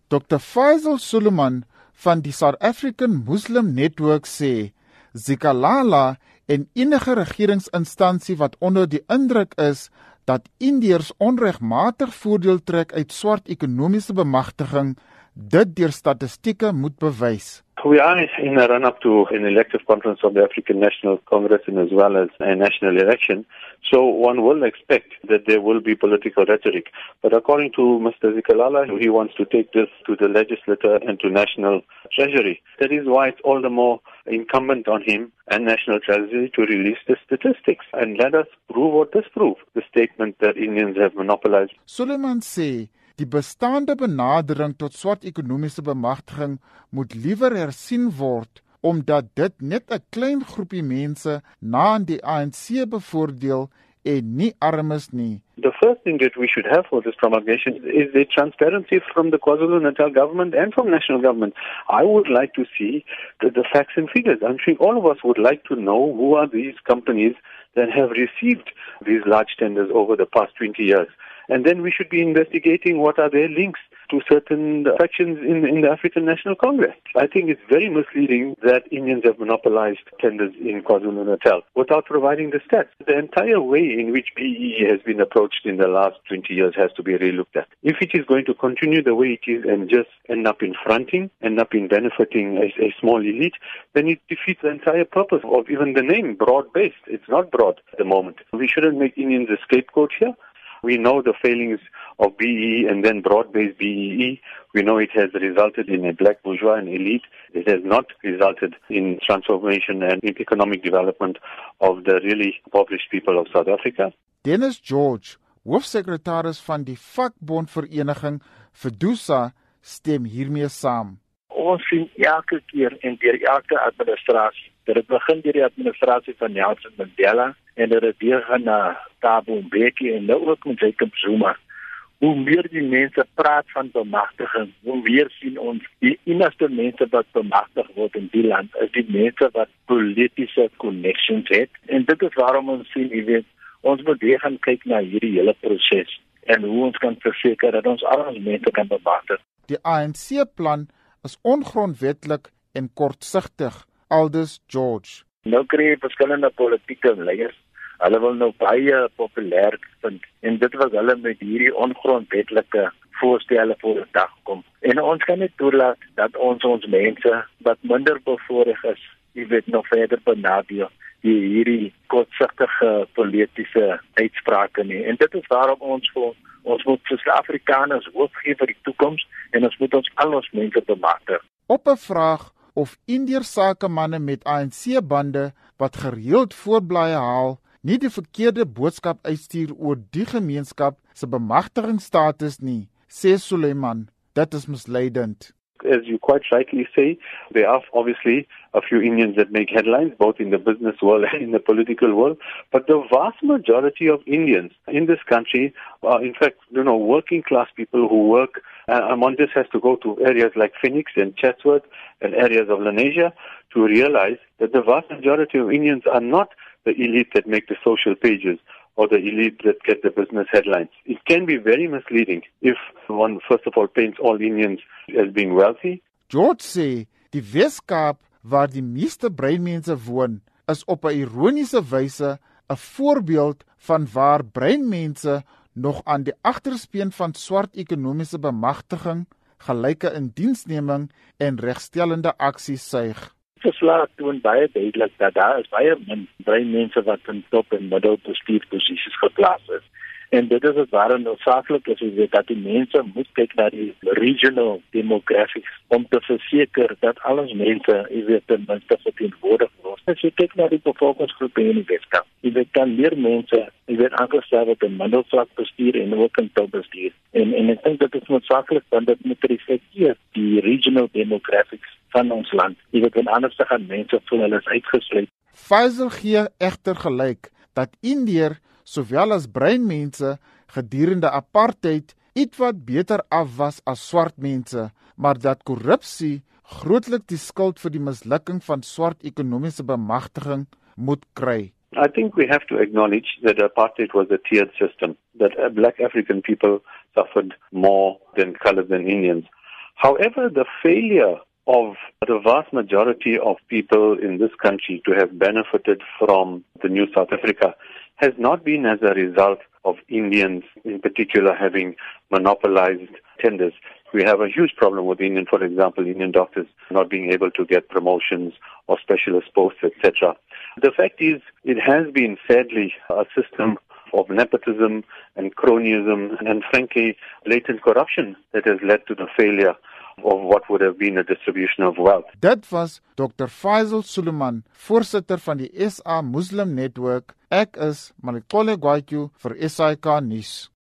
Dr. Faisal Suleiman van die South African Muslim Network sê, Zikalala en enige regeringsinstansie wat onder die indruk is dat Indiërs onregmatig voordeel trek uit swart ekonomiese bemagtiging, dit deur statistieke moet bewys. We are in a run-up to an elective conference of the African National Congress and as well as a national election. So one will expect that there will be political rhetoric. But according to Mr. Zikalala, he wants to take this to the legislature and to national treasury. That is why it's all the more incumbent on him and national treasury to release the statistics and let us prove or disprove the statement that Indians have monopolized. Suleiman sê, die bestaande benadering tot swart ekonomiese bemagtiging moet liewer hersien word, omdat dit net 'n klein groepie mense na aan die ANC bevoordeel en nie armes nie. The first thing that we should have for this promulgation is the transparency from the KwaZulu-Natal government and from national government. I would like to see the facts and figures. I'm sure all of us would like to know who are these companies that have received these large tenders over the past 20 years. And then we should be investigating what are their links to certain factions in the African National Congress. I think it's very misleading that Indians have monopolized tenders in KwaZulu-Natal without providing the stats. The entire way in which BEE has been approached in the last 20 years has to be relooked at. If it is going to continue the way it is and just end up in fronting, end up in benefiting a small elite, then it defeats the entire purpose of even the name, broad-based. It's not broad at the moment. We shouldn't make Indians a scapegoat here. We know the failings of BEE and then broad-based BEE. We know it has resulted in a black bourgeois and elite. It has not resulted in transformation and in economic development of the really impoverished people of South Africa. Dennis George, hoofsekretaris van die vakbondvereniging FEDUSA, stem hiermee saam. Ons sien elke keer en deur elke administrasie, dat het begin deur die administrasie van Nelson Mandela en dat het weer gaan na Thabo Mbeki en nou ook met Jacob Zuma. Hoe meer die mense praat van bemagtiging, hoe meer sien ons die enigste mense wat bemagtig word in die land is die mense wat politiese connections het. En dit is waarom ons sien, ons moet weer gaan kyk na hierdie hele proses en hoe ons kan verseker dat ons al ons mense kan bemagtig. Die ANC-plan is ongrondwetlik en kortsigtig, aldus George. Nou kry jy verskillende politieke leiers. Hulle wil nou baie populêr vind en dit was hulle met hierdie ongrondwetlike voorstelle voor die dag kom. En ons kan nie toelaat dat ons mense wat minder bevoorreg is, nog verder benadeel die hierdie kortsigtige politiese uitsprake nie. En dit is waarom ons moet vir Afrikaners hoop gee vir die toekoms en ons moet al ons mense bemagtig. Op 'n vraag of Indiërs sakemanne met ANC-bande wat gereeld voorblaaie haal, nie die verkeerde boodskap uitstuur oor die gemeenskap se bemagtigingsstatus nie, sê Suleiman, dit is misleidend. As you quite rightly say, there are obviously a few Indians that make headlines, both in the business world and in the political world. But the vast majority of Indians in this country are, in fact, working class people who work. One just has to go to areas like Phoenix and Chatsworth and areas of Lenasia to realize that the vast majority of Indians are not the elite that make the social pages or the elite that get the business headlines. It can be very misleading if one, first of all, paints all Indians as being wealthy. George sê, die Weskaap waar die meeste breinmense woon, is op 'n ironiese wyse 'n voorbeeld van waar breinmense nog aan die agterspeen van swart ekonomiese bemagtiging, gelyke indiensneming en regstellende aksie suig. Verslag toon baie duidelik dat daar is baie min breinmense wat in top en middelbestuursposisies geplaas is. En dit is waarom noodsaaklik is dat die mense moet kyk na die regional demographics om te verseker dat al ons mense, ten minste verteenwoordig word. As jy kyk na die bevolkingsgroepe in die Weskaap, dan meer mense, aangestel word in middelvlak bestuur en ook in topbestuur. En ek dink dit is noodsaaklik want dit moet reflekteer die regional demographics van ons land. En anders gaan mense voel hulle is uitgesluit. Faisal gee egter gelyk dat Indiër sowel as breinmense gedurende apartheid ietwat beter af was as swart mense, maar dat korrupsie grootlik die skuld vir die mislukking van swart ekonomiese bemagtiging moet kry. I think we have to acknowledge that apartheid was a tiered system, that black African people suffered more than colored than Indians. However, the failure of the vast majority of people in this country to have benefited from the new South Africa has not been as a result of Indians in particular having monopolized tenders. We have a huge problem with for example, Indian doctors not being able to get promotions or specialist posts, etc. The fact is, it has been sadly a system of nepotism and cronyism and frankly latent corruption that has led to the failure of what would have been a distribution of wealth. Dit was Dr. Faisal Suleiman, voorsitter van die SA Muslim Network. Ek is Malikole Gwaityu vir SAK nuus.